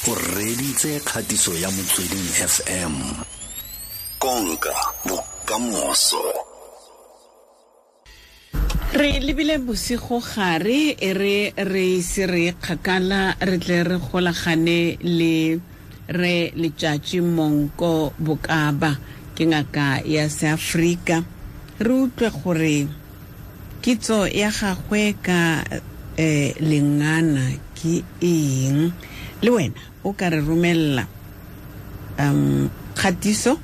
O reditse kgatiso ya Motsweding FM. Konka bokamoso. Re lebile bosigo gare e re re ise re kgakala re tle re golagane le re Letšatši Monko Bokaba, ke ngaka ya Seafrika, re utlwe gore kitso ya gagwe ka lengana ke eng. Le wena o ka re romella kgatiso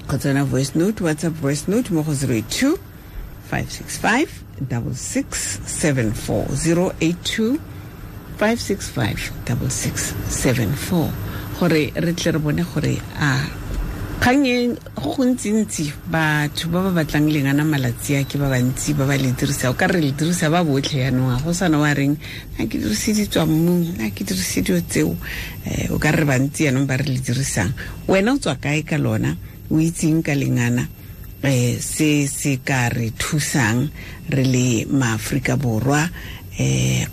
kgotsa yona voice note, WhatsApp voice note mo go 082 565 6674, 082 565 6674, gore re tle re bone gore a kgang e go gontsintsi batho ba ba batlang lengana malatsi a ke ba bantsi ba ba le dirisa, o ka re le dirisa ba botlhe yanong, a go sana wa reng na ke dirise ditswa mmung, na ke dirise dilo tseo, o ka re bantsi yanong ba re le dirisang. Wena o tswa kae ka lona, o itseng ka lengana, se se ka re thusang re le maAforika Borwa,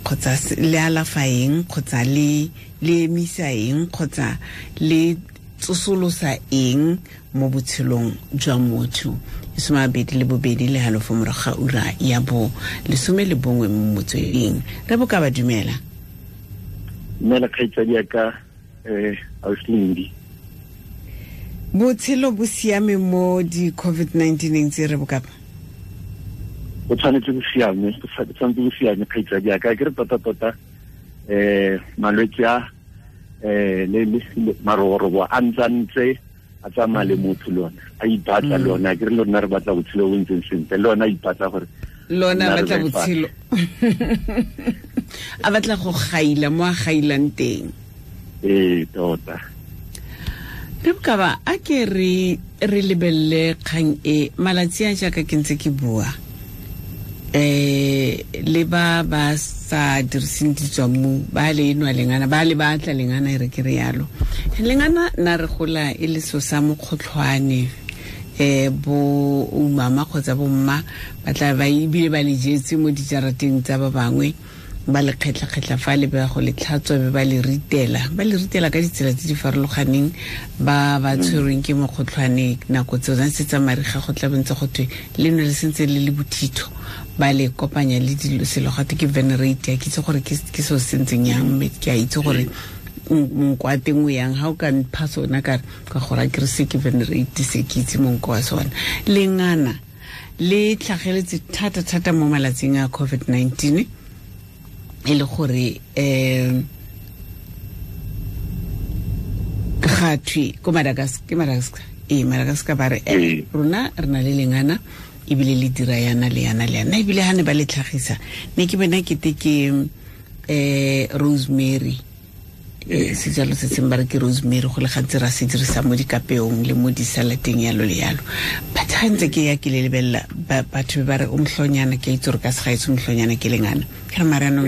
kgotsa le alafa eng, kgotsa le emisa eng, kgotsa le tsosolosa eng mo botshelong jwa motho. 22:30 morago ga ura ya bo 11 mo Motsweding. Re boka ba dumela. Dumela kgaitsadi ya ka, Auslindi. Botshelo bo siame mo di COVID-19 tse re bokapa? Bo tshwanetse bo siame, bo tshwanetse bo siame kgaitsadi ya ka. Ke re tota-tota, malwetse a, le maroborobo a ntsantse a tsamaya le motho lona, a ipatla lona. Ke re lona re batla botshelo bo ntseng sentle, le lona a ipatla gore lona batla botshelo. A batla go gaila mo a gailang teng. Ee, tota. Re bokaba a ke re lebelele kgang e malatsi a jaaka ke ntse ke bua, le ba ba sa diriseng ditswammung ba le enwa lengana, ba le batla lengana, e re ke re yalo. Lengana na re gola e le so sa mokgotlhwane, bo umama kgotsa bo mma ba tla ba ebile ba le jetse mo dijarateng tsa ba bangwe, ba le kgetlha-kgetlha fa le ba go le tlhatswa, be ba le ritela, ba le ritela ka ditsela tse di farologaneng. Ba ba tshwerweng ke mokgotlhwane nako tseo se tsa mariga go tla bontse go thwe le nwe le sentse le le bothitho, ba le kopanya le dilo selo gate ke venerate. Ke itse gore ke seo se ntseng yang, mme ke a itse gore monko wa teng o yang. Ha o ka mpha sona ka gore a ke re se ke venerate, se ke itse monko wa sona. Lengana le tlhageletse thata-thata mo malatsing a COVID-19, e le gore ga thwe ko Madagascar, ke Madagascar, Madagascar ba re rona re na le lengana ebile le dira yana le yana le yana, ebile ha ne ba le tlhagisa ne ke bona kete ke rosemary, sejalo se seng ba re ke rosemary, go le gantsi ra se dirisa mo dikapeong le mo disalateng yalo le yalo. But ha ntse ke ya ke le lebelela batho ba re o mohlonyana, ke itse gore ka segaetsho mohlonyana ke lengana. Ke re mare anong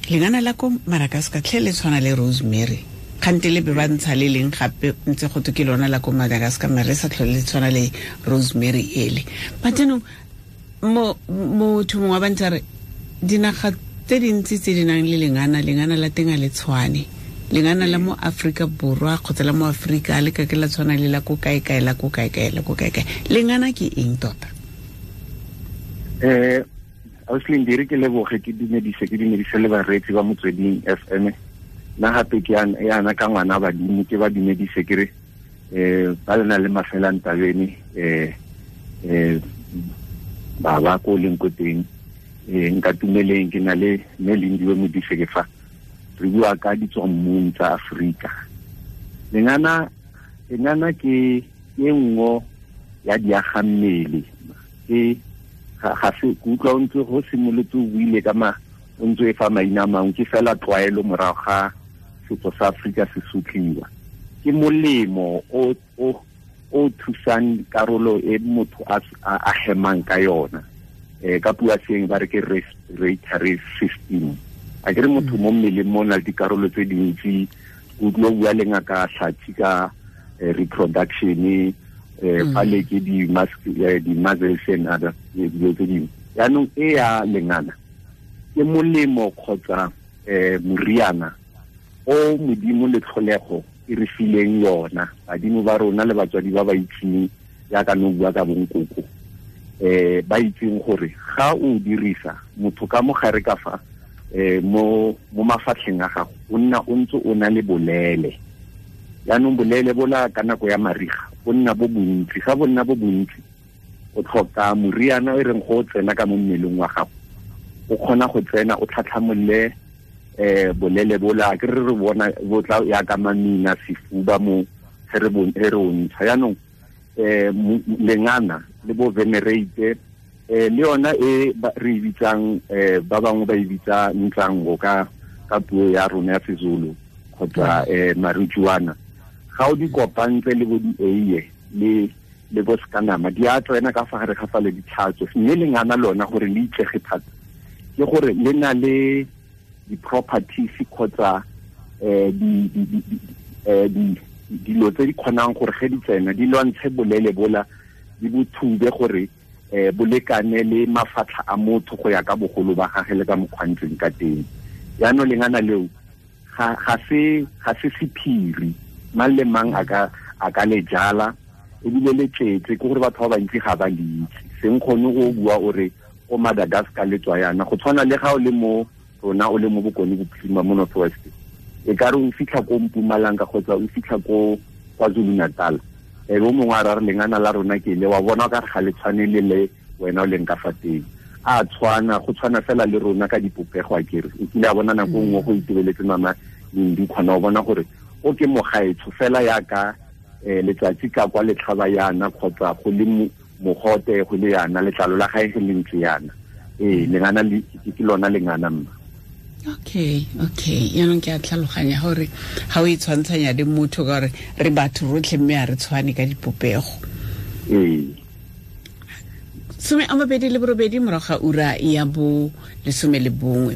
lengana la ko Madagascar tlhe le tshwana le rosemary, kgante le be ba ntsha le leng gape ntse go twe ke lona la ko Madagascar, mare le sa tlhole le tshwana le rosemary ele. But anong motho mongwe wa ba ntse a re dinaga tse dintsi tse di nang le lengana, lengana la teng a le tshwane. Lengana la mo Afrika Borwa kgotsa la mo Afrika le ka ke la tshwana le la ko kae-kae, la ko kae-kae, la ko kae-kae. Lengana ke eng tota? Auslindi, re ke leboge, ke dumedise, ke dumedise le bareetsi ba Motsweding FM. Nna gape ke yana ka ngwana badimo, ke ba dumedise ke re ba lena le mafelang tabene, ba ba ko leng ko teng, nka tumeleng ke na le mme Lindiwe Modise ke fa re bua ka ditswammung tsa Afrika. Lengana ke e nngwe ya diagammele, ke ga se ke utlwa o ntse go simolotse o buile ka ma o ntse e fa maina a mangwe, ke fela tlwaelo morago ga setso sa Afrika se sotliwa. Ke molemo o thusang karolo e motho a hemang ka yona, ka puo ya seeng ba re ke respiratory system. A ke re motho mo mmeleng mo na le dikarolo tse dintsi, o utlwa o bua le ngaka Hlatsi ka reproduction, fa le ke di-muscles and other dilo tse dingwe. Yaanong e ya lengana ke molemo kgotsa moriana o Modimo le tlholego e re fileng yona, badimo ba rona le batswadi ba ba itseng jaaka no bua ka bonkoko, ba itseng gore ga o dirisa motho ka mogare ka fa mo mafatlheng a gago o nna o ntse o na le bolele. Jaanong bolele bola ka nako ya mariga bo nna bo bontsi, ga bo nna bo bontsi o tlhoka moriana e reng go tsena ka mo mmeleng wa gago, o kgona go tsena o tlhatlhamolle bolele bola ke re bona bo tla ya ka mamina sefuba mo re o ntsha. Jaanong lengana le bo venerate le yona e re e bitsang ba bangwe ba e bitsa ntlango ka puo ya rona ya Sezulu kgotsa marijuana, ga o di kopantse le bo di-eiye le bo sekanama di a tsena ka fa gare ga fa le ditlhatso. Mme lengana lona gore le itsege thata ke gore le na le di-properties kgotsa dilo tse di kgonang gore ge di tsena di lwantshe bolele bola di bo thube gore bolekane le mafatlha a motho go ya ka bogolo ba gage le ka mokgwantseng ka teng. Jaanong lengana leo ga se sephiri, mang le mang a ka le jala ebile le tletse, ke gore batho ba bantsi ga ba le itse. Seng kgone go bua o re ko Madagascar le tswa yana, go tshwana le ga o le mo rona o le mo Bokone Bophirima mo North West, e ka re o fitlha ko Mpumalanga kgotsa o fitlha ko KwaZulu Natal, e bo mongwe a ra re lengana la rona ke le wa bona ka re ga le tshwane le le wena o leng ka fa teng, a tshwana go tshwana fela le rona ka dipopego. A kere o kile a bona nako nngwe go itebeletse mama Lindi, kgona go bona gore o ke mogaetsho fela yaka letsatsi ka kwa letlhaba yana kgotsa go le mogote go le yana letlalo la gae le ntse yana. Lengana ke lona lengana mma. Okay, yaanong ke a tlhaloganya gore ga o e tshwantshanya le motho ka gore re batho rotlhe mme a re tshwane ka dipopego. 28 morago ga ura ya bo 11.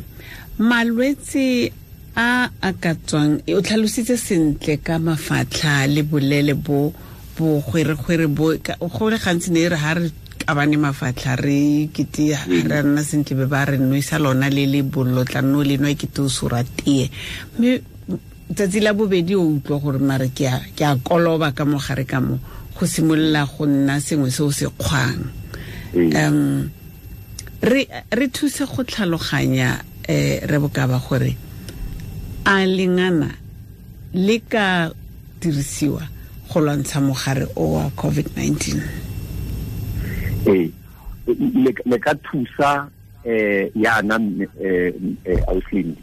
Malwetse a a ka tswang, o tlhalositse sentle ka mafatlha le bolele bo bo gweregwere bo go le gantsi ne re ha re kabane mafatlha re kete re nna sentle be ba re nwesa lona le le bollo tla nno le nwa kete o sora tee, mme tsatsi la bobedi o utlwa gore mare ke a koloba ka mogare ka mo go simolola go nna sengwe se o se kgwang. Re thuse go tlhaloganya re bokaba gore a lengana le ka dirisiwa go lwantsha mogare o wa COVID-19. Le ka thusa yana auslindi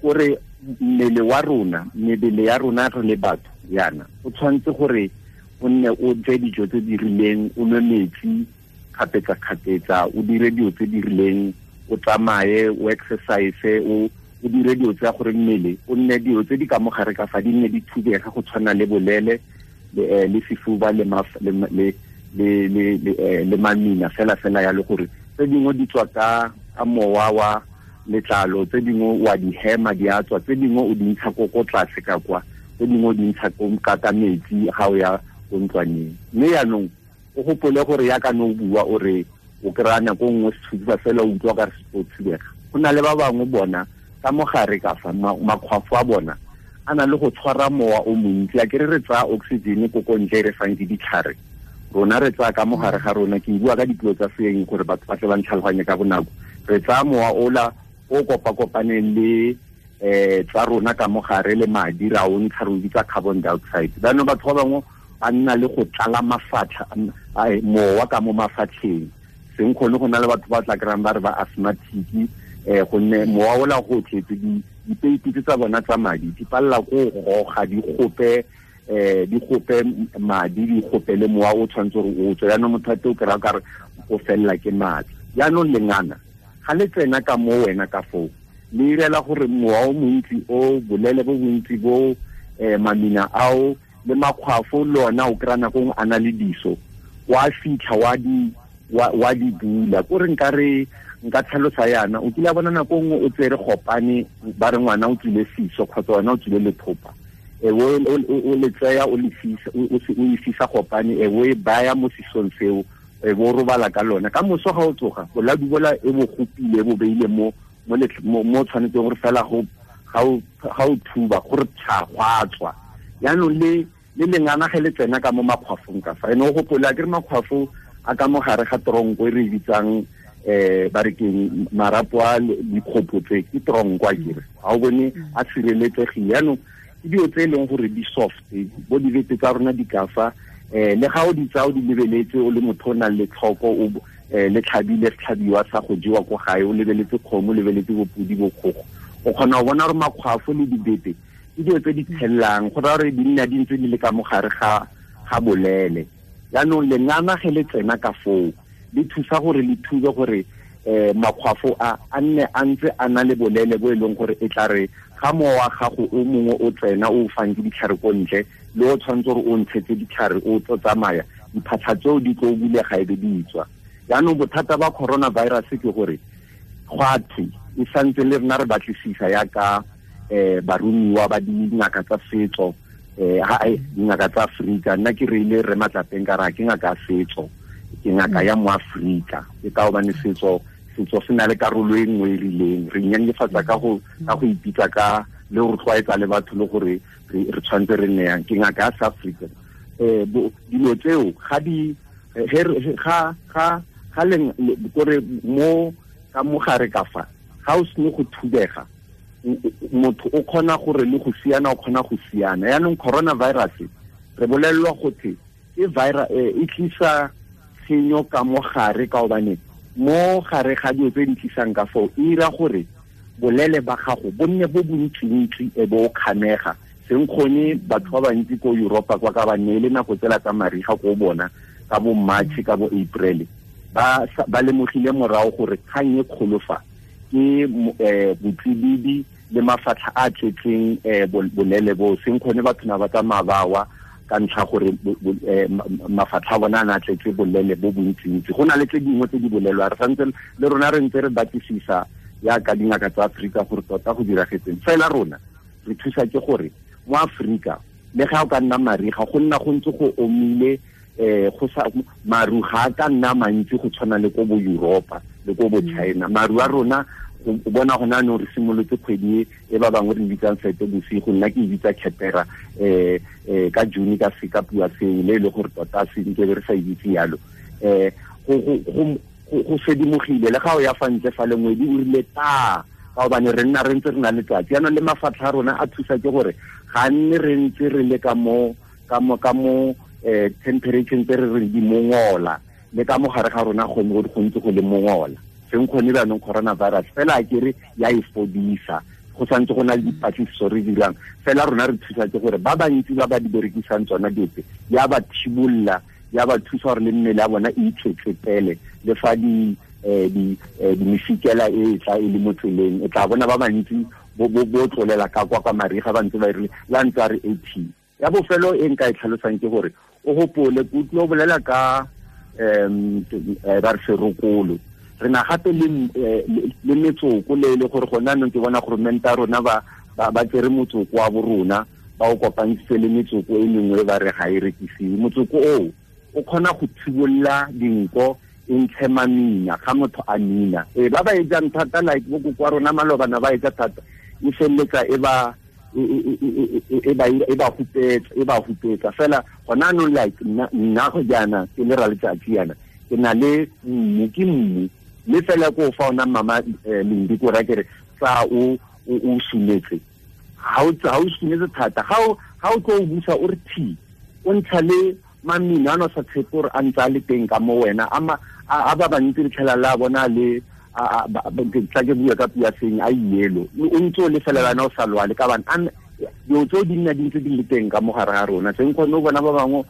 gore mmele wa rona, mebele ya rona re le batho yana o tshwanetse gore o nne o je dijo tse di rileng, o nwe metsi kgapetsa-kgapetsa, o dire dilo tse di rileng, o tsamaye, o exercise, o dire dilo tsa gore mmele o nne dilo tse di ka mogare ka fa di nne di thubega go tshwana le bolele le sefuba le le mamina fela fela ya le gore tse dingwe di tswa ka mowa wa letlalo, tse dingwe wa di hema di a tswa, tse dingwe o di ntsha ko tlase ka kwa, tse dingwe o di ntsha ka metsi ga o ya ko ntlwaneng. Mme yaanong o gopole gore yaka no bua o re o kry-a nako nngwe sefuba fela o utlwa ka re se thubega. Go na le ba bangwe bona ka mogare ka fa makgwafo a bona a na le go tshwara mowa o montsi, a kere re tsaya oxygen ko ko ntle re fang ke ditlhare, rona re tsaya ka mogare ga rona, ke bua ka dipuo tsa seeng gore batho ba tle ba ntlhaloganye ka bonako, re tsaya mowa ola o kopa-kopaneng le tsa rona ka mogare le madi ra o ntsha re o bitsa carbon dioxide. Jaanong batho ba bangwe ba nna le go tlala mafatlha mowa ka mo mafatlheng, seng kgone go na le batho ba tla kry-ang ba re ba asthmatic, gonne mowa ola go tletse dipeipi tsa bona tsa madi di palela ko goga di gope madi di gope le mowa o tshwanetse gore o tswe. Jaanong motho a te o kry-a kare o felela ke maatla. Jaanong lengana ga le tsena ka mo wena ka foo le irela gore mowa o montsi o bolele bo bontsi bo mamina ao le makgwafo le ona o kry-a nako nngwe a na le diso wa fitlha wa di bula. Kore nka tlhalosa yana, o kile a bona nako nngwe o tsere gopane ba re ngwana o tswile fiso kgotsa wena o tswile lethopa, o le tseya o e fisa gopane, o e baya mo sisong seo, bo robala ka lona. Ka moso ga o tsoga boladu bola e bo gopile bo beile mo mo tshwanetseng gore fela go ga o thuba gore tsha gwa tswa. Yaanong le lengana ge le tsena ka mo makgwafong ka fa ene o gopola ke re makgwafo a ka mo gare ga tronko e re bitsang ba re keng marapo a dikgopo tse ke tronko a kere ga o bone a sireletsegile. Yaanong ke dilo tse e leng gore di soft bo dibete tsa rona di ka fa le ga o di tsaya o di lebeletse o le motho o nang le tlhoko o le tlhabile setlhabiwa sa go jewa ko gae o lebeletse kgomo o lebeletse bopodi bokgogo o kgona go bona gore makgwafo le dibete ke dilo tse di tshelelang go raya gore di nna di ntse di le ka mogare ga bolele. Yaanong lengana ge le tsena ka foo le thusa gore le thube gore makgwafo a nne a ntse a na le bolele bo e leng gore e tla re ga mowa wa gago o mongwe o tsena o fang ke ditlhare ko ntle le o tshwanetse gore o ntshetse ditlhare o tlo tsamaya diphatlha tseo di tlo bulega e be di tswa. Yaanong bothata ba coronavirus ke gore gwa thwe e santse le rena re batlisisa yaka barumiwa ba dingaka tsa setso dingaka tsa Afrika. Nna ke reile re matlapeng ka ra ke ngaka ya setso ke ngaka ya mo Afrika ke ka hobane setso se na le karolo e nngwe e rileng re nyenyefatsa ka go ipitsa ka le go tlwaetsa le batho le gore re tshwanetse re nne yang ke ngaka ya South Africa. Dilo tseo ga di ga leng kore mo ka mogare ka fa ga o sene go thubega motho o kgona gore le go siana o kgona go siana. Yaanong coronavirus re bolelelwa gothe ke virus e tlisa tshenyo ka mogare ka hobane mo gare ga dilo tse di tlisang ka foo e ira gore bolele ba gago bo nne bo bontsintsi e bo kgamega seng kgone batho ba bantsi ko Europa kwa ka ba neele nako tsela tsa mariga ko bona ka bo March ka bo April ba lemogile morago gore kgang e kgolo fa ke botsididi le mafatlha a tletseng bolele bo seng kgone batho na ba tsamaya ba wa ka ntlha gore mafatlha a bona a na tletse bolele bo bontsintsi. Go na le tse dingwe tse di bolelwa re santse le rona re ntse re batlisisa yaka dingaka tsa Afrika gore tota go diragetseng. Fela rona re thusa ke gore mo Afrika le ga o ka nna mariga go nna go ntse go omile go sa maru ga ka nna mantsi go tshwana le ko bo Europa le ko bo China. Maru a rona o bona gona no re simolotse kgwedi e ba bangwe re bitsang sete bosigo nna ke bitsa khepera ka June ka seka pua seo le le gore tota se nke re sa itse yalo go sedimogile le ga o ya fa ntle fa lengwedi o rile ta ka hobane re nna re ntse re na le tsatsi. Yaanong le mafatlha a rona a thusa ke gore ga nne re ntse re le ka mo temperature tse re re di mongola le ka mo gare ga rona go ntse go le mongola seng kgone jaanong coronavirus fela a kere ya e fodisa go santse go na le dipatlisiso re dirang fela rona re thusa ke gore ba bantsi ba ba di berekisang tsona diope ya ba thibolola ya ba thusa gore le mmele ya bona e itsetsepele le fa di mefikela e tla e le mo tseleng e tla bona ba bantsi bo tlolela ka kwa mariga ba ntse ba rile la ntse a re AT. Ya bofelo e nka e tlhalosang ke gore o gopole ke utlwe o bolela ka ba re serokolo re na gape le metsoko le le gore gona anong ke bona gore menta rona ba tsere motsoko wa borona ba o kopantse le metsoko e mengwe ba re ga e rekisiwe. Motsoko oo o kgona go thibolola dinko e ntshe mamina ga motho a mina ba ba e jang thata like bo koko wa rona malobana ba e ja thata e feleletsa e ba hupetsa fela gona anong like nna go jaana ke le ra letsatsi yana ke na le mmu ke mmu le fela ko fa ona mama Lindi ko ra kere tsa o sumetse ha o sumetse thata ha o tlo o busa o re thi o ntsha le mamina a no sa tshepe gore a ntse a le teng ka mo wena a ba bantsi re tlhela la bona le tla ke bua ka pua seng a yelo o ntse o le fela bana o sa lwale ka bana dilo tseo di nna di ntse di le teng ka mo gare ga rona seng kgone o bona ba bangwe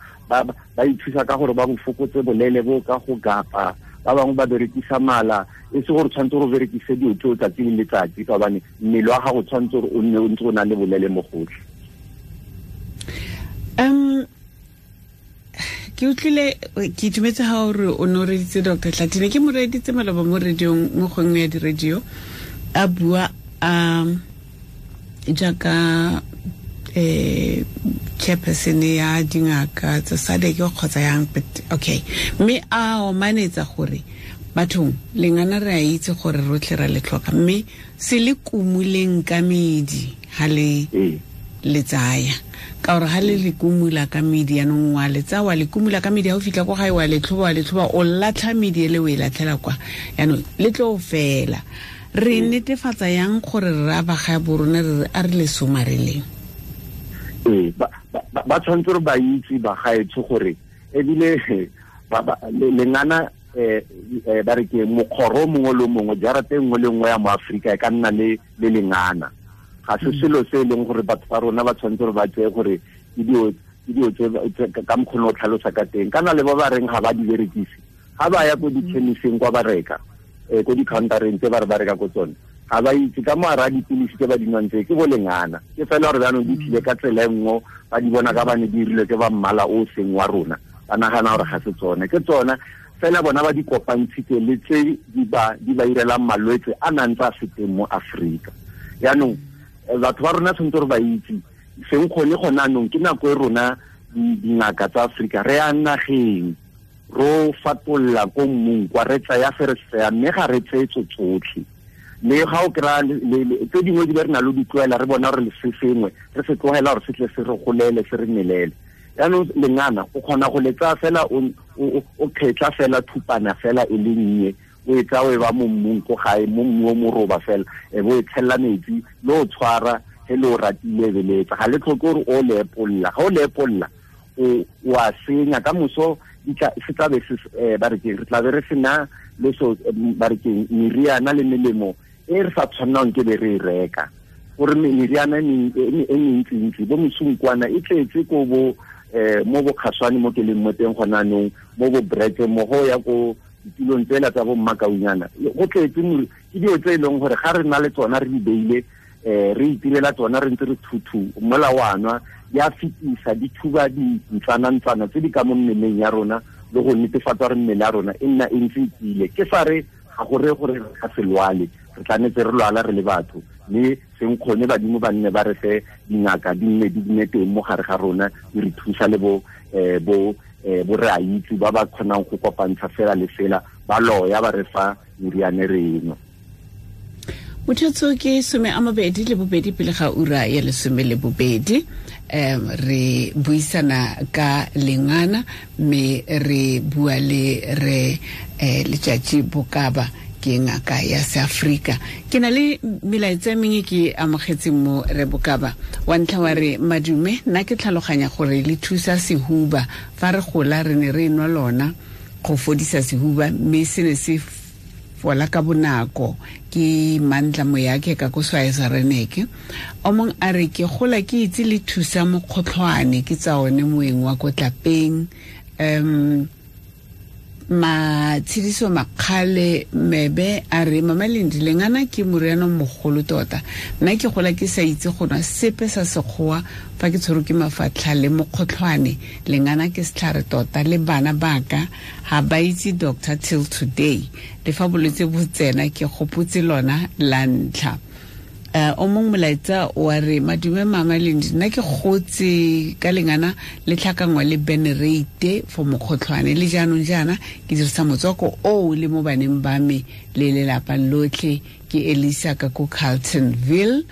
ba ithusa ka gore ba go fokotse bolele bo ka go gapa ba bangwe ba berekisa mala e se gore tshwanetse gore o berekise dilo tseo tsatsi le letsatsi ka gobane mmele wa gago tshwanetse gore o nne o ntse o na le bolele mo gotlhe. Ke utlwile ke itumetse ha o re o ne o reditse Dr. Tlatine ke mo reditse maloba mo radiong mo gongwe ya di-radio a bua a jaaka chairperson ya dingaka tsa SADC kgotsa yang, but okay mme a omanetsa gore Bathong lengana re a itse gore rotlhe ra le tlhoka, mme se le kumuleng ka medi ha le le tsaya, ka gore ha le le kumula ka medi yanong wa le tsaya wa le kumula ka medi, ha o fitlha ko gae wa le tlhoba o latlha medi ele o e latlhela kwa, yanong le tlo fela. Re netefatsa yang gore re a ba ga borona re a re le somareleng? Ba tshwanetse re ba itse ba gaetsho gore ebile lengana ba re ke mokgoro mongwe le mongwe, jarata e nngwe le nngwe ya mo Afrika e ka nna le lengana. Ga se selo se e leng gore batho ba rona ba tshwanetse gore ba tseye gore ke dilo tse ka mokgwa o tlhalosa ka teng. Kana le ba ba reng ga ba di berekise, ga ba ya ko di-chemiseng kwa ba reka, ko di-countereng tse ba re ba reka ko tsone, ga ba itse ka mo ara dipilisi tse ba di nwang tse ke bo lengana. Ke fela gore jaanong di tlile ka tsela e nngwe, ba di bona ka ba ne di dirilwe ke ba mmala o seng wa rona, ba nagana gore ga se tsone, ke tsona fela bona ba di kopantshitse le tse di ba irelang malwetse a nang tsa se teng mo Afrika. Jaanong batho ba rona tshwanetse gore ba itse seng kgone gone anong ke nako e rona dingaka tsa Afrika re ya nageng ro fatolla ko mmung kwa re tsaya se re se tsaya, mme ga re tseye tso tsotlhe. Le ga o kry-a tse dingwe di be re na le di tloela, re bona gore se sengwe re se tlogela gore se tle se re golele se re melele. Jaanong lengana o kgona go le tsaya fela o kgetla fela thupana fela e le nnye, o e tsaya o e ba mo mmung ko gae, mo mmu o moroba fela, e bo e tshella metsi le o tshwara he le o ratile beletsa. Ga le tlhoke gore o le epolla, ga o le epolla o a senya ka moso se tla be se ba re ke re tla be re sena le so ba re ke meriana le melemo e re sa tshwannang ke be re e reka, gore meriana e mentsi-ntsi bo mesunkwana e tletse ko bo mo bo kgaswane mo ke leng mo teng gona anong, mo bo brete mo go ya ko ditulong tsela tsa bo mmakaunyana, go tletse ke dilo tse e leng gore ga re na le tsona re di beile, re itirela tsona re ntse re thuthu mola wa nwa, di a fetisa di thuba dintsana-ntsana tse di ka mo mmeleng ya rona le go netefatsa gore mmele ya rona e nna e ntse e tiile. Ke sa re ga gore gore re ka se lwale, re tlametse re lwala re le batho, mme seng kgone badimo ba nne ba re fe dingaka di nne di nne teng mo gare ga rona di re thusa le bo bo re a itse ba ba kgonang go kopantsha fela le fela ba loya ba re fa meriane re eno. Mothetso ke 22 pele ga ura ya 12. Re buisana ka lengana mme re bua le re Letsatsi Bokaba ke ngaka ya Seafrika. Ke na le melaetsa e mengwe ke amogetseng mo re Bokaba. Wa ntlha wa re madume, nna ke tlhaloganya gore le thusa sehuba, fa re gola re ne re nwa lona go fodisa sehuba, mme se ne se fola ka bonako. Ke Mandla Moyake ka ko Swaesa Reneke. O mong a re ke gola ke itse le thusa mokgotlhwane, ke tsa one moeng wa ko tlapeng. Matshediso Makgale Mebe a re Mama Lendi, lengana ke moriana mogolo tota, nna ke gola ke sa itse go nwa sepe sa sekgowa fa ke tshwerwe ke mafatlha le mokgotlhwane, lengana ke setlhare tota, le bana baka ga ba itse doctor till today, le fa bolwetse bo tsena ke gopotse lona la ntlha. O mongwe molaetsa wa re madume Mama Lendi, nna ke gotse ka lengana le tlhakangwa le benerate for mokgotlhwane, le jaanong jaana ke dirisa motswako oo le mo baneng ba me le lelapa lotlhe. Ke Elisa ka ko Carltonville.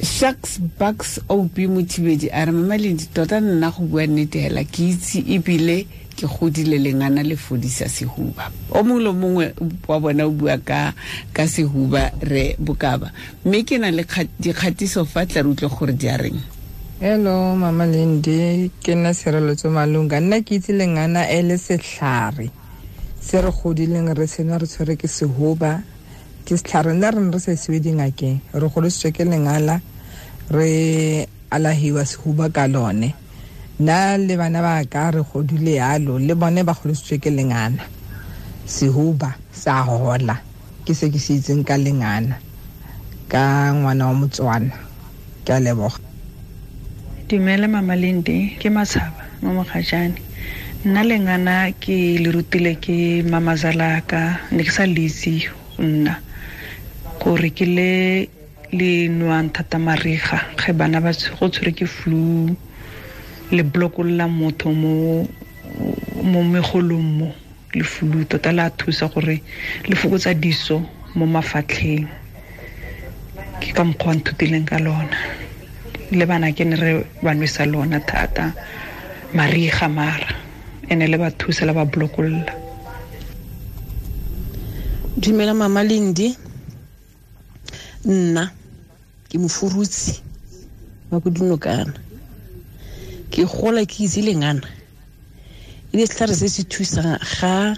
Sharks Bucks OP Mothibedi a re Mama Lendi, tota nna go bua nnete hela ke itse ebile ke godile lengana le fodisa sehuba. O mongwe le mongwe wa bona o bua ka sehuba re Bokaba, mme ke na le dikgatiso fa tla re utlwe gore di a reng. Hello Mama Lendi, ke nna Tshireletso Malunga. Nna ke itse lengana e le setlhare se re godileng re sena re tshwere ke sehuba, ke setlhare nna re ne re sa isiwe dingakeng, re godisitswe ke lengala, re alahiwa sehuba ka lone. Nna le bana ba ka re godile yalo, le bone ba godisitswe ke lengana, sehuba sa hola. Ke se ke se itseng ka lengana ka ngwana wa Motswana. Ke a leboga. Dumela Mama Lendi, ke Matshaba mo Mogajane. Nna lengana ke le rutile ke mamazala ka, ne ke sa le itse nna gore ke le le nwang thata mariga ge bana ba go tshwere ke flu, le blokolola motho mo megolong mo. Le flu tota la thusa gore le fokotsa diso mo mafatlheng. Ke ka mokgwa nthutileng ka lona. Le bana ke ne re ba nwesa lona thata mariga mara ene le ba thusa la ba blokolla. Dumela Mama Lindi, nna ke mofurutsi wa ko Dinokana. Ke gola ke itse lengana e le setlhare se se thusang ga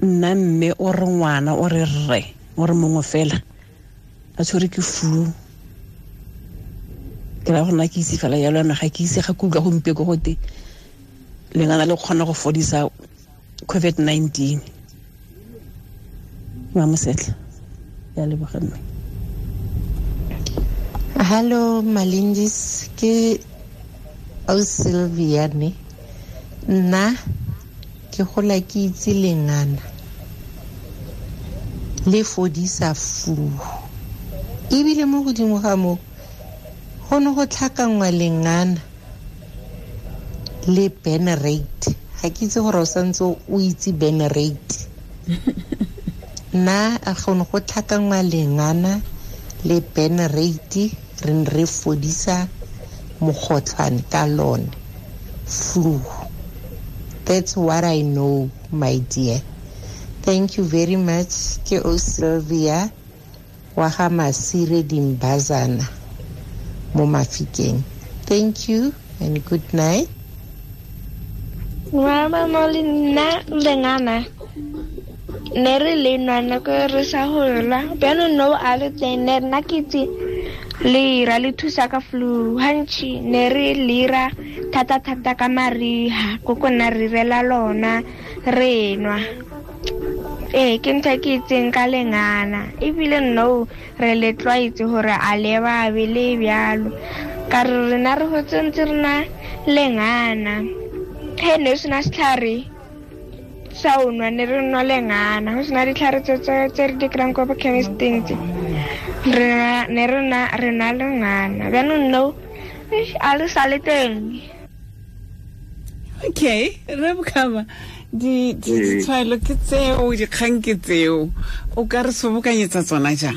nna mme o re ngwana o re rre o re mongwe fela a tshwere ke flu. Ke ra gona ke itse fela yalo yana, ga ke itse ga ke utlwa gompieko gote lengana le kgona go fodisa COVID-19. Mamosetla, ya leboga mme. Hello Malindis, ke Sylvia ne. Nna ke gola ke itse lengana le fodisa flu. Ebile mo godimo ga mo go ne go tlhakangwa lengana le Benerate. Ga ke itse gore o santse o itse Benerate. Nna a go ne go tlhakangwa lengana le Benerate, re ne re fodisa mokgotlhwane ka lone, flu. That's what I know, my dear. Thank you very much. Ke o Sylvia wa ga Masire Dimbazana mo Mafikeng. Thank you and good night. Mama Molina lengana ne re le nwana ko re sa hola bjano no a le teng ne nna ke itse lera le thusa ka flu hantši ne re lera thata thata ka mariha koko nna re rela lona re nwa. Ke ntho ke itseng ka lengana ebile no re le tlwaetse gore a le babe le bjalo ka re rena re hotse ntse re na lengana. He ne sena setlhare sa o nwa ne re nwa lengana, go sena ditlhare tse re di kry-ang ko bo chemisteng tse re ne re nwa lengana bjanong no a le sa le teng. Okay, re bokaba ditshwaelo ke tseo, dikgang ke tseo, o ka re sobokanyetsa tsona jang?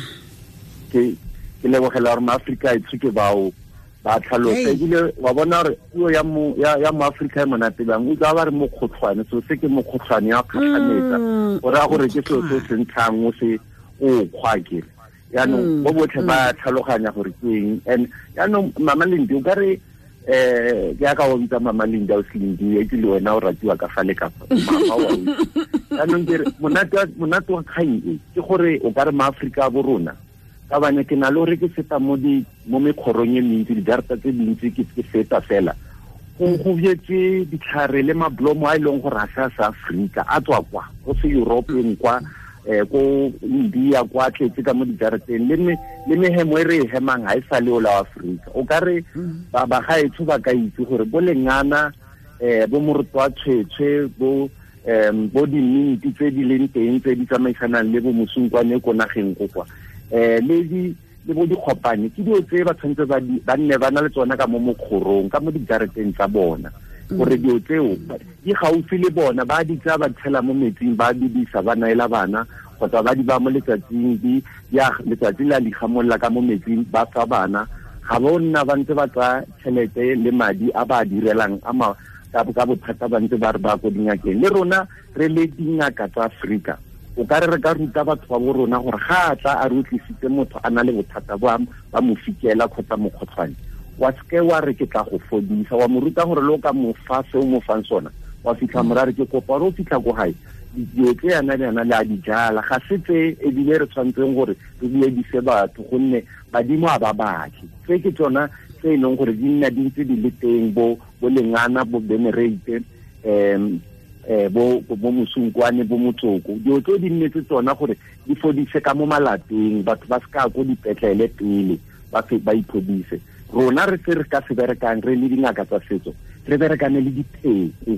Ke lebogela gore maAforika etsho ke bao ba tlhalosa ebile wa bona gore puo ya moAforika e monate bang. O tla ba re mokgotlhwane, so se ke mokgotlhwane ya kgatlhanetsa o raya gore ke selo se se ntshang o se o kgwa kere. Yaanong bo botlhe ba tlhaloganya gore ke eng. And yaanong Mama Lindi o ka re ke ya ka o bitsa Mama Lindi o se Lindi e ke le wena o ratiwa ka fa le ka fa mama wa o. Yaanong ke re monate wa kgang e ke gore o ka re maAforika bo rona ka bane ke na le gore ke feta mo mekgorong e mentsi, dijarata tse dintsi ke feta fela go jetse ditlhare le mablomo a e leng gore a se a sa Afrika a tswa kwa go se European kwa ko India kwa tletse ka mo dijarateng le mehemo e re e hemang ha e sa le ola wa Afrika. O ka re ba bagaetsho ba ka itse gore bo lengana bo moroto wa tshwetshwe bo diminti tse di leng teng tse di tsamaisanang le bo mosunkwane ko nageng ko kwa le bo dikgopane ke dilo tse ba tshwanetse ba nne ba na le tsona ka mo mokgorong ka mo dijarateng tsa bona gore dilo tseo di gaufi le bona ba di tsaya ba tshela mo metsing ba bidisa ba naela bana kgotsa ba di ba mo letsatsing di ya letsatsi la ligamolla ka mo metsing ba fa bana. Ga bo nna ba ntse ba tsaya tšhelete le madi a ba direlang a ma ka bothata ba ntse ba re ba ko dingakeng. Le rona re le dingaka tsa Afrika o ka re ka ruta batho ba bo rona gore ga a tla a re tlisitse motho a na le bothata ba mo fikela kgotsa mokgotlhwane wa seke wa re ke tla go fodisa, wa mo ruta gore le o ka mo fa se o mo fang sona wa fitlha morare ke kopa gore o fitlha ko gae dilo tse yana le yana le a di jala ga se tse ebile re tshwanetseng gore re buedise batho gonne badimo a ba batle. Tse ke tsona tse e leng gore di nna di ntse di le teng bo lengana bo Benerate bo mosunkwane bo motsoko dilo tse di nnetse tsona gore di fodise ka mo malapeng batho ba se ka ko dipetlele pele ba iphodise. Rona re se re ka se berekang re le dingaka tsa setso re berekane le dipheko.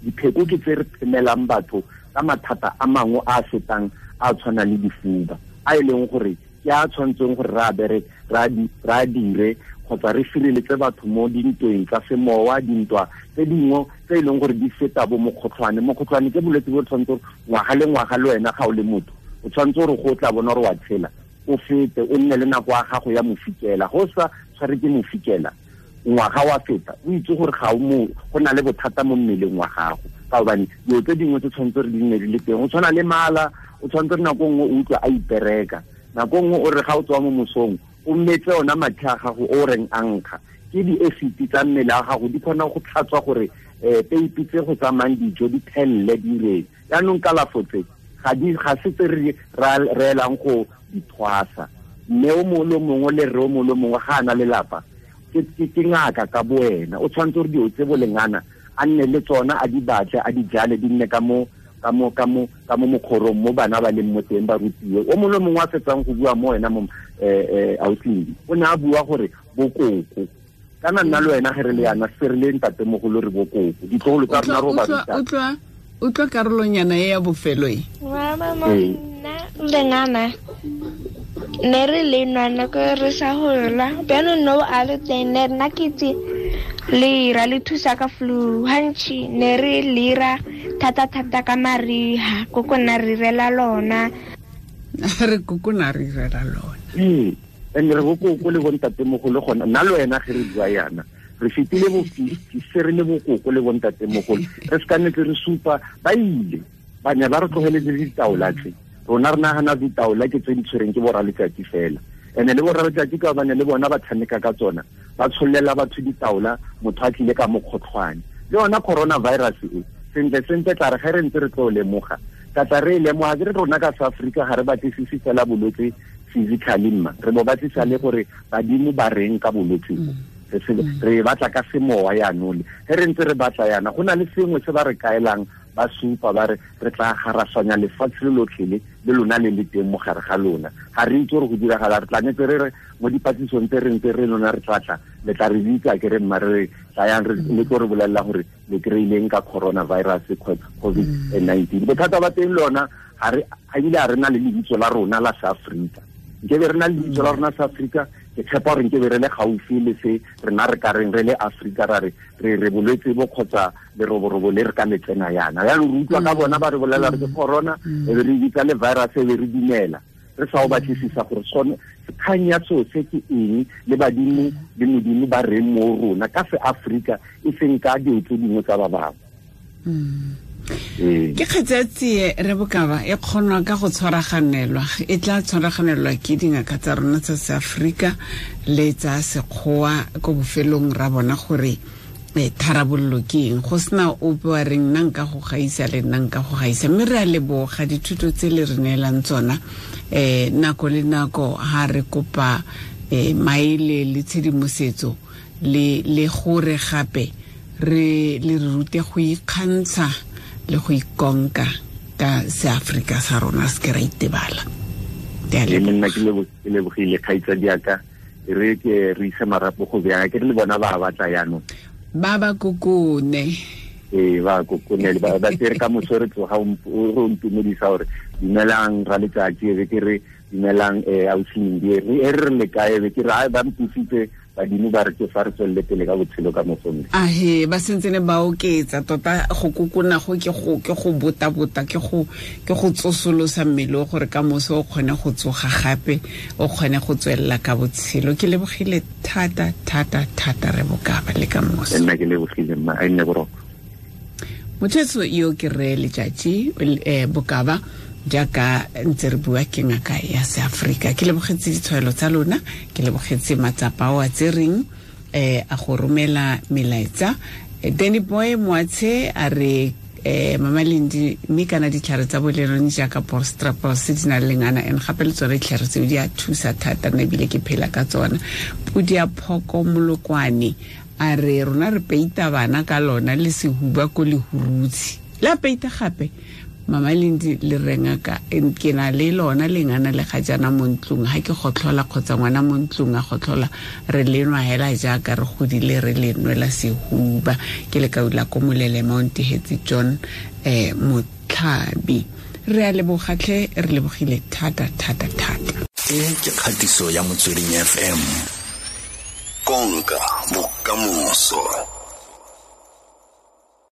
Dipheko ke tse re phemelang batho ka mathata a mangwe a fetang a tshwana le difuba a e leng gore Ke a tshwanetseng gore ra bere ra dire kgotsa re sireletse batho mo dintweng tsa semowa, dintwa tse dingwe tse e leng gore di feta bo mokgotlhwane. Mokgotlhwane ke bolwetse bo tshwanetse ngwaga le ngwaga le wena ga o le motho o tshwanetse gore go tla bona gore wa tshela, o fete o nne le nako ya gago ya mofikela. Go sa tshware ke mofikela ngwaga wa feta, o itse gore ga o mo go na le bothata mo mmeleng wa gago, ka gobane dilo tse dingwe tse tshwanetse re di nne di le teng. O tshwana le mala, o tshwanetse re nako nngwe o utlwa a ipereka, nako nngwe o re ga o tswa mo mosong o mmetse ona mathe a gago o reng a nkga, ke di-acid tsa mmele a gago di kgona go tlhatswa gore peipi tse go tsamayang dijo di thelele di reng. Jaanong kalafo tse ga se tse re reelang go di thwasa. Mme o mongwe le mongwe le rre o mongwe le mongwe ga a na lelapa ke ngaka ka bo wena, o tshwanetse gore dilo tse bolengana a nne le tsona, a di batle, a di jale, di nne ka mo mokgorong mo bana ba leng mo teng ba rutiwe. O mongwe le mongwe a fetsang go bua mo wena mo auslindi o ne a bua gore bokoko, kana nna le wena ge re le yana se re le ntatemogolo re bokoko, ditlogolo tsa rona ro ba ruta. Utlwa karolonyana e ya bofelo e. Nna lengana ne re le nwa nako re sa gola, bjanong no a le teng ne nna ke itse lera le thusa ka flu gantši, ne re lera thata-thata ka mariga, koko nna re irela lona. Re koko nna re irela lona. Ee, and re bokoko le bontatemogolo gona nna le wena ge re bua yana re fetile bo 50 se re le bokoko le bontatemogolo, re se ka nnetse re supa ba ile ba ne ba re tlogeletse ditaola tse. Rona re nagana ditaola ke tse di tshwereng ke borra letsatsi fela, ene le borra letsatsi ka bane le bona ba tshameka ka tsona, ba tshollela batho ditaola, motho a tlile ka mokgotlhwane. Le yona coronavirus e sentle sentle tla re ge re ntse re tlo lemoga, ka tla re e lemoga ke re rona ka South Africa ga re batlisise fela bolwetse physically mma, re bo batlisa le gore badimo ba reng ka bolwetse bo. Re batla ka semowa yaanong, ge re ntse re batla yana go na le sengwe se ba re kaelang, ba supa ba re re tla garasanya lefatshe le lotlhe le lona le le teng mo gare ga lona. Ga re itse gore go diragala, re tla netse re re mo dipatlisong tse re ntse re lona re tla tla le tla re bitsa ke re mma re tlayang re le tlo re bolelela gore le kry-ileng ka coronavirus COVID-19. Bothata ba teng lona ga re ebile ga re na le lebitso la rona la South Africa. Nkebe re na le lebitso la rona South Africa, ke tshepa gore nkebe re le gaufi le se rena re ka reng re le Afrika ra re re bolwetse bo kgotsa leroborobo le re ka le tsena yana. Jaanong re utlwa ka bona ba re bolela re ke corona, e be re bitsa le virus, e be re dumela re sa o batlisisa gore sone kgang ya seo se ke eng, le badimo le modimo ba reng mo rona ka se Afrika e seng ka dilo tse dingwe tsa ba bangwe. Ke kgetse ya tsie re bokaba e kgonwa ka go tshwaraganelwa, e tla tshwaraganelwa ke dingaka tsa rona tsa Seafrika le tsa Sekgowa ko bofelong ra bona gore tharabololo ke eng, go sena ope wa reng nna nka go gaisa le nna nka go gaisa. Mme re a leboga dithuto tse le re neelang tsona nako le nako ha re kopa maele le tshedimosetso le gore gape re le re rute go ikgantsha le go ikonka ka Seafrika sa rona, se ke ra itebala. Nna ke lebogile kgaitsadi yaka, re ke re ise marapo go bjang ke re le bona ba batla jaanong ba ba kokone. Ee, ba kokone ba tsere ka moso re tloga o ntumedisa gore dumelang ra letsatsi, e be ke re dumelang ausi e re re le kae, be ke re ai ba mpusitse badimo ba re ke fa re tswelele pele ka botshelo ka moso. Ahe, ba sentse ne ba oketsa tota go kokona go ke go botabota ke go tsosolosa mmele gore ka moso o kgone go tsoga gape, o kgone go tswelela ka botshelo. Ke lebogile thata thata thata re bokaba le ka moso. Nna ke lebogile mma, a nne boroko. Motho yo ke re Letsatsi Bokaba jaaka ntse re bua ke ngaka ya Seafrika. Ke lebogetse ditshwaelo tsa lona, ke lebogetse matsapa ao a tsereng a go romela melaetsa. Danny Boy Moatshe a re Mama Lindi mme kana ditlhare tsa bolerone jaaka Bostrapos di na le lengana and gape le tsone ditlhare tseo di a thusa thata, nna ebile ke phela ka tsona. Pudi ya Phoko Molokwane a re rona re peita bana ka lona le sehuba ko lehurutshi la peita gape. Mama Lindi le renga ka ke na le lona lengana le ga jana mo ntlong, ha ke gotlhola kgotsa ngwana mo ntlong a gotlhola re le nwa hela jaaka re godile re le nwela sehuba. Ke le kaula ko Molele Mount Hetsi John Motlhabi. Re a lebogatlhe, re lebogile thata thata thata. E ke kgatiso ya Motsweding FM. Konka bokamoso.